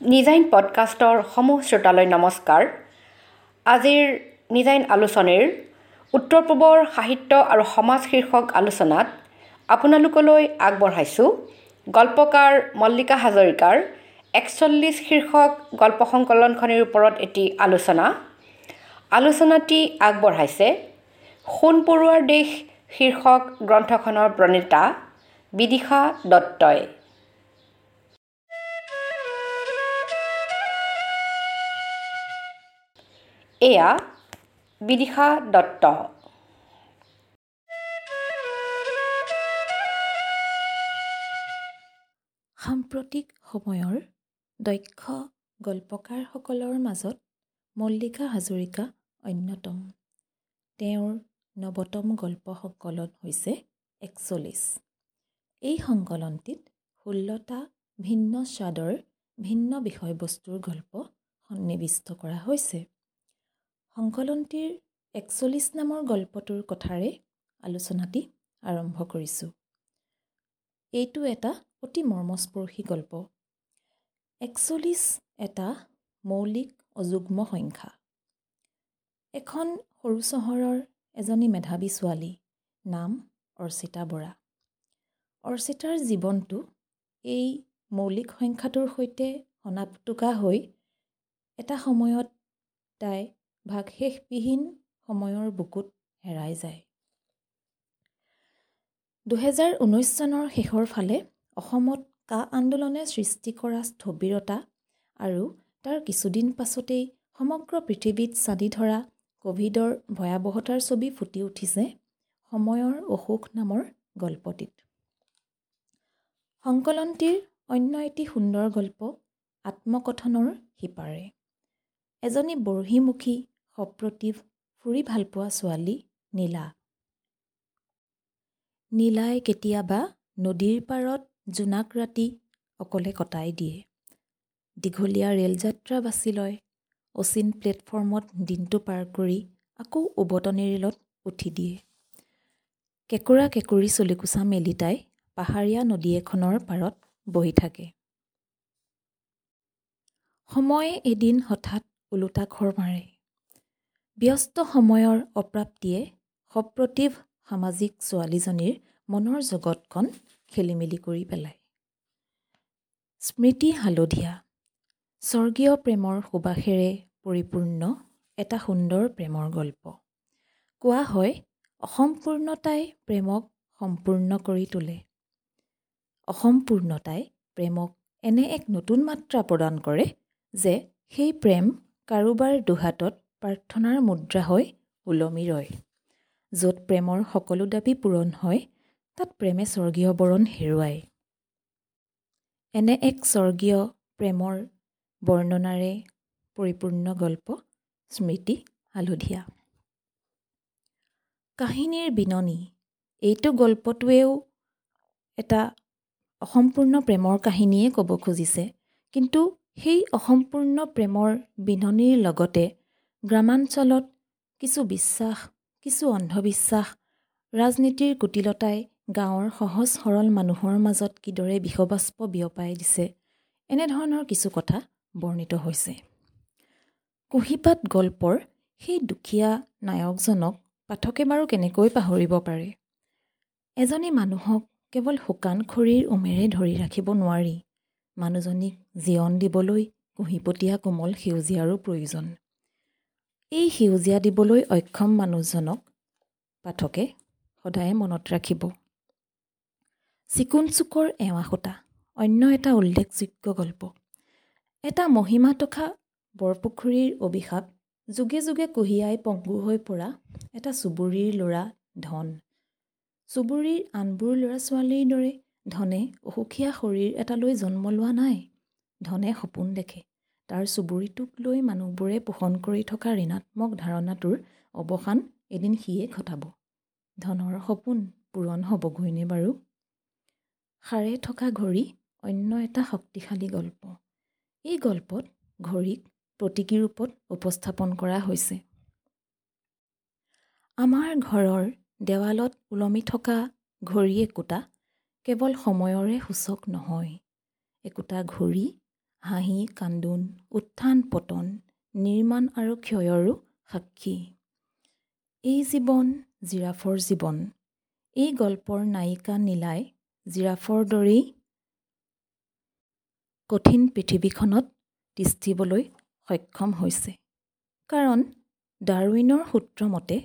নিজাইন পডকাষ্টৰ সমূহ শ্ৰোতালৈ নমস্কাৰ। আজিৰ নিজাইন আলোচনীৰ উত্তৰ পূবৰ সাহিত্য আৰু সমাজ শীৰ্ষক আলোচনাত আপোনালোকলৈ আগবঢ়াইছোঁ গল্পকাৰ মল্লিকা হাজৰিকাৰ 41 শীৰ্ষক গল্প সংকলনখনিৰ ওপৰত এটি আলোচনা। আলোচনাটি আগবঢ়াইছে সোণ পৰুৱাৰ দেশ শীৰ্ষক গ্ৰন্থখনৰ প্ৰণেতা বিদিশা দত্তই। এয়া বিদিশা দত্ত। সাম্প্ৰতিক সময়ৰ দক্ষ গল্পকাৰসকলৰ মাজত মল্লিকা হাজৰিকা অন্যতম। তেওঁৰ নৱতম গল্প সংকলন হৈছে 41। এই সংকলনটিত 16টা ভিন্ন স্বাদৰ ভিন্ন বিষয়বস্তুৰ গল্প সন্নিৱিষ্ট কৰা হৈছে। সংকলনটিৰ 41 নামৰ গল্পটোৰ কথাৰে আলোচনাটি আৰম্ভ কৰিছোঁ। এইটো এটা অতি মৰ্মস্পৰ্শী গল্প। 41 এটা মৌলিক অযুগ্ম সংখ্যা। এখন সৰু চহৰৰ এজনী মেধাৱী ছোৱালী, নাম অৰ্চিতা বৰা। অৰ্চিতাৰ জীৱনটো এই মৌলিক সংখ্যাটোৰ সৈতে সনাপটুকা হৈ এটা সময়ত তাই ভাগশেষবিহীন সময়ৰ বুকুত হেৰাই যায়। 2019 চনৰ শেষৰ ফালে অসমত কা আন্দোলনে সৃষ্টি কৰা স্থবিৰতা আৰু তাৰ কিছুদিন পাছতেই সমগ্ৰ পৃথিৱীত ছানি ধৰা ক'ভিডৰ ভয়াৱহতাৰ ছবি ফুটি উঠিছে সময়ৰ অসুখ নামৰ গল্পটিত। সংকলনটিৰ অন্য এটি সুন্দৰ গল্প আত্মকথনৰ সিপাৰে। এজনী বৰ্হিমুখী সপ্ৰতিভ ফুৰি ভালপোৱা ছোৱালী নীলা। নীলাই কেতিয়াবা নদীৰ পাৰত জোনাক ৰাতি অকলে কটাই দিয়ে। দীঘলীয়া ৰেলযাত্ৰা বাছি লয়। অচিন প্লেটফৰ্মত দিনটো পাৰ কৰি আকৌ উভতনি ৰেলত উঠি দিয়ে। কেঁকোৰা কেঁকুৰি চুলিকোচা মেলি তাই পাহাৰীয়া নদী এখনৰ পাৰত বহি থাকে। সময়ে এদিন হঠাৎ ওলোটা খৰ মাৰে। ব্যস্ত সময়ৰ অপ্ৰাপ্তিয়ে সপ্ৰতিভ সামাজিক ছোৱালীজনীৰ মনৰ জগতখন খেলিমেলি কৰি পেলায়। স্মৃতি হালধীয়া, স্বৰ্গীয় প্ৰেমৰ সুবাসেৰে পৰিপূৰ্ণ এটা সুন্দৰ প্ৰেমৰ গল্প। কোৱা হয় অসম্পূৰ্ণতাই প্ৰেমক সম্পূৰ্ণ কৰি তোলে। অসম্পূৰ্ণতাই প্ৰেমক এনে এক নতুন মাত্ৰা প্ৰদান কৰে যে সেই প্ৰেম কাৰোবাৰ দুহাতত প্ৰাৰ্থনাৰ মুদ্ৰা হৈ ওলমি ৰয়। য'ত প্ৰেমৰ সকলো দাবী পূৰণ হয়, তাত প্ৰেমে স্বৰ্গীয় বৰণ হেৰুৱায়। এনে এক স্বৰ্গীয় প্ৰেমৰ বৰ্ণনাৰে পৰিপূৰ্ণ গল্প স্মৃতি হালধীয়া। কাহিনীৰ বিননি এইটো গল্পটোৱেও এটা অসম্পূৰ্ণ প্ৰেমৰ কাহিনীয়ে ক'ব খুজিছে, কিন্তু সেই অসম্পূৰ্ণ প্ৰেমৰ বিননিৰ লগতে গ্ৰামাঞ্চলত কিছু বিশ্বাস, কিছু অন্ধবিশ্বাস, ৰাজনীতিৰ কুটিলতাই গাঁৱৰ সহজ সৰল মানুহৰ মাজত কিদৰে বিষবাষ্প বিয়পাই দিছে, এনেধৰণৰ কিছু কথা বৰ্ণিত হৈছে। কুঁহিপাত গল্পৰ সেই দুখীয়া নায়কজনক পাঠকে বাৰু কেনেকৈ পাহৰিব পাৰে? এজনী মানুহক কেৱল শুকান খৰিৰ উমেৰে ধৰি ৰাখিব নোৱাৰি। মানুহজনীক জীয়ন দিবলৈ কুঁহিপতীয়া কোমল সেউজীয়াৰো প্ৰয়োজন। এই সেউজীয়া দিবলৈ অক্ষম মানুহজনক পাঠকে সদায়ে মনত ৰাখিব। চিকুণ চুকৰ এৱা সূতা অন্য এটা উল্লেখযোগ্য গল্প। এটা মহিমা তথা বৰপুখুৰীৰ অভিশাপ যুগে যুগে কুঁহিয়াই পংগু হৈ পৰা এটা চুবুৰীৰ ল'ৰা ধন। চুবুৰীৰ আনবোৰ ল'ৰা ছোৱালীৰ দৰে ধনে অসুখীয়া শৰীৰ এটালৈ জন্ম লোৱা নাই। ধনে সপোন দেখে। তাৰ চুবুৰীটোক লৈ মানুহবোৰে পোষণ কৰি থকা ঋণাত্মক ধাৰণাটোৰ অৱসান এদিন সিয়ে ঘটাব। ধনৰ সপোন পূৰণ হ'বগৈনে বাৰু? সাৰে থকা ঘড়ী অন্য এটা শক্তিশালী গল্প। এই গল্পত ঘড়ীক প্ৰতীকী ৰূপত উপস্থাপন কৰা হৈছে। আমাৰ ঘৰৰ দেৱালত ওলমি থকা ঘড়ী একোটা কেৱল সময়ৰে সূচক নহয়। একোটা ঘড়ী হাঁহি কান্দোন, উত্থান পতন, নিৰ্মাণ আৰু ক্ষয়ৰো সাক্ষী। এই জীৱন জিৰাফৰ জীৱন। এই গল্পৰ নায়িকা নীলাই জিৰাফৰ দৰেই কঠিন পৃথিৱীখনত তিষ্ঠিবলৈ সক্ষম হৈছে। কাৰণ ডাৰউইনৰ সূত্ৰমতে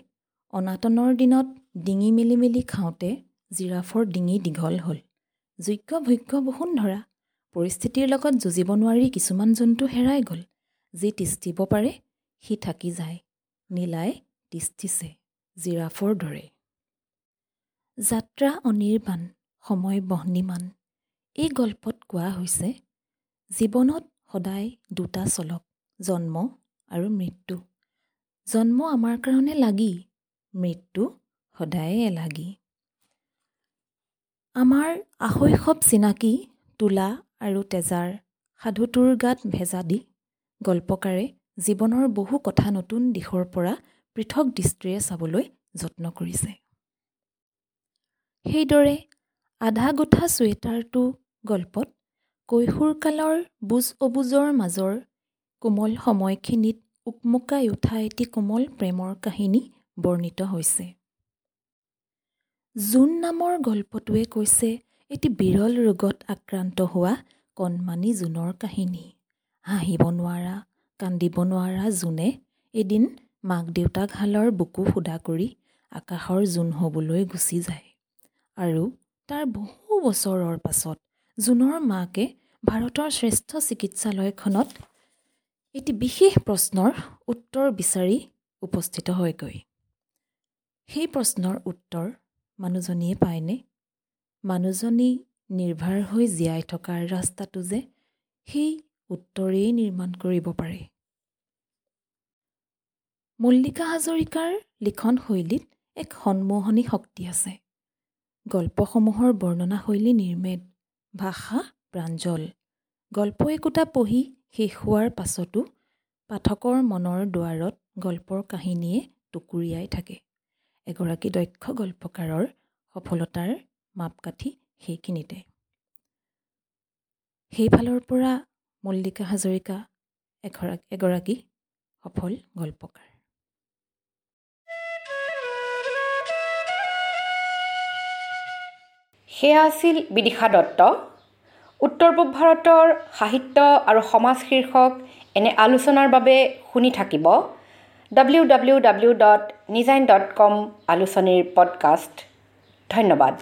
অনাটনৰ দিনত ডিঙি মেলি মেলি খাওঁতে জিৰাফৰ ডিঙি দীঘল হ'ল। যোগ্য ভোগ্য বসুন্ধৰা পৰিস্থিতিৰ লগত যুঁজিব নোৱাৰি কিছুমান জন্তু হেৰাই গ'ল। যি তিষ্ঠিব পাৰে সি থাকি যায়। নীলাই তিষ্ঠিছে জিৰাফৰ দৰে। যাত্ৰা অনিৰ্বাণ, সময় বহ্নিমান। এই গল্পত কোৱা হৈছে জীৱনত সদায় দুটা চলক, জন্ম আৰু মৃত্যু। জন্ম আমাৰ কাৰণে লাগি, মৃত্যু সদায়ে এলাগী। আমাৰ আশৈশৱ চিনাকি তোলা আৰু তেজাৰ সাধুটোৰ গাত ভেজা দি গল্পকাৰে জীৱনৰ বহু কথা নতুন দিশৰ পৰা পৃথক দৃষ্টিৰে চাবলৈ যত্ন কৰিছে। সেইদৰে আধা গোঠা চুৱেটাৰটো গল্পত কৈশোৰকালৰ বুজ অবুজৰ মাজৰ কোমল সময়খিনিত উকমুকাই উঠা এটি কোমল প্ৰেমৰ কাহিনী বৰ্ণিত হৈছে। জোন নামৰ গল্পটোৱে কৈছে এটি বিৰল ৰোগত আক্ৰান্ত হোৱা কণমানি জোনৰ কাহিনী। হাঁহিব নোৱাৰা, কান্দিব নোৱাৰা জোনে এদিন মাক দেউতাকহালৰ বুকু সুদা কৰি আকাশৰ জোন হ'বলৈ গুচি যায়। আৰু তাৰ বহু বছৰৰ পাছত জোনৰ মাকে ভাৰতৰ শ্ৰেষ্ঠ চিকিৎসালয়খনত এটি বিশেষ প্ৰশ্নৰ উত্তৰ বিচাৰি উপস্থিত হয়গৈ। সেই প্ৰশ্নৰ উত্তৰ মানুহজনীয়ে পায়নে? মানুহজনী নিৰ্ভাৰ হৈ জীয়াই থকাৰ ৰাস্তাটো যে সেই উত্তৰেই নিৰ্মাণ কৰিব পাৰে। মল্লিকা হাজৰিকাৰ লিখন শৈলীত এক সন্মোহনী শক্তি আছে। গল্পসমূহৰ বৰ্ণনা শৈলী নিৰ্মেদ, ভাষা প্ৰাঞ্জল। গল্প একোটা পঢ়ি শেষ হোৱাৰ পাছতো পাঠকৰ মনৰ দুৱাৰত গল্পৰ কাহিনীয়ে টুকুৰিয়াই থাকে। এগৰাকী দক্ষ গল্পকাৰৰ সফলতাৰ মাপকাঠি সেইখিনিতে। সেইফালৰ পৰা মল্লিকা হাজৰিকা এগৰাকী সফল গল্পকাৰ। সেয়া আছিল বিদিশা দত্ত। উত্তৰ পূব ভাৰতৰ সাহিত্য আৰু সমাজ শীৰ্ষক এনে আলোচনাৰ বাবে শুনি থাকিব www.nijain.com আলোচনীৰ পডকাষ্ট। ধন্যবাদ।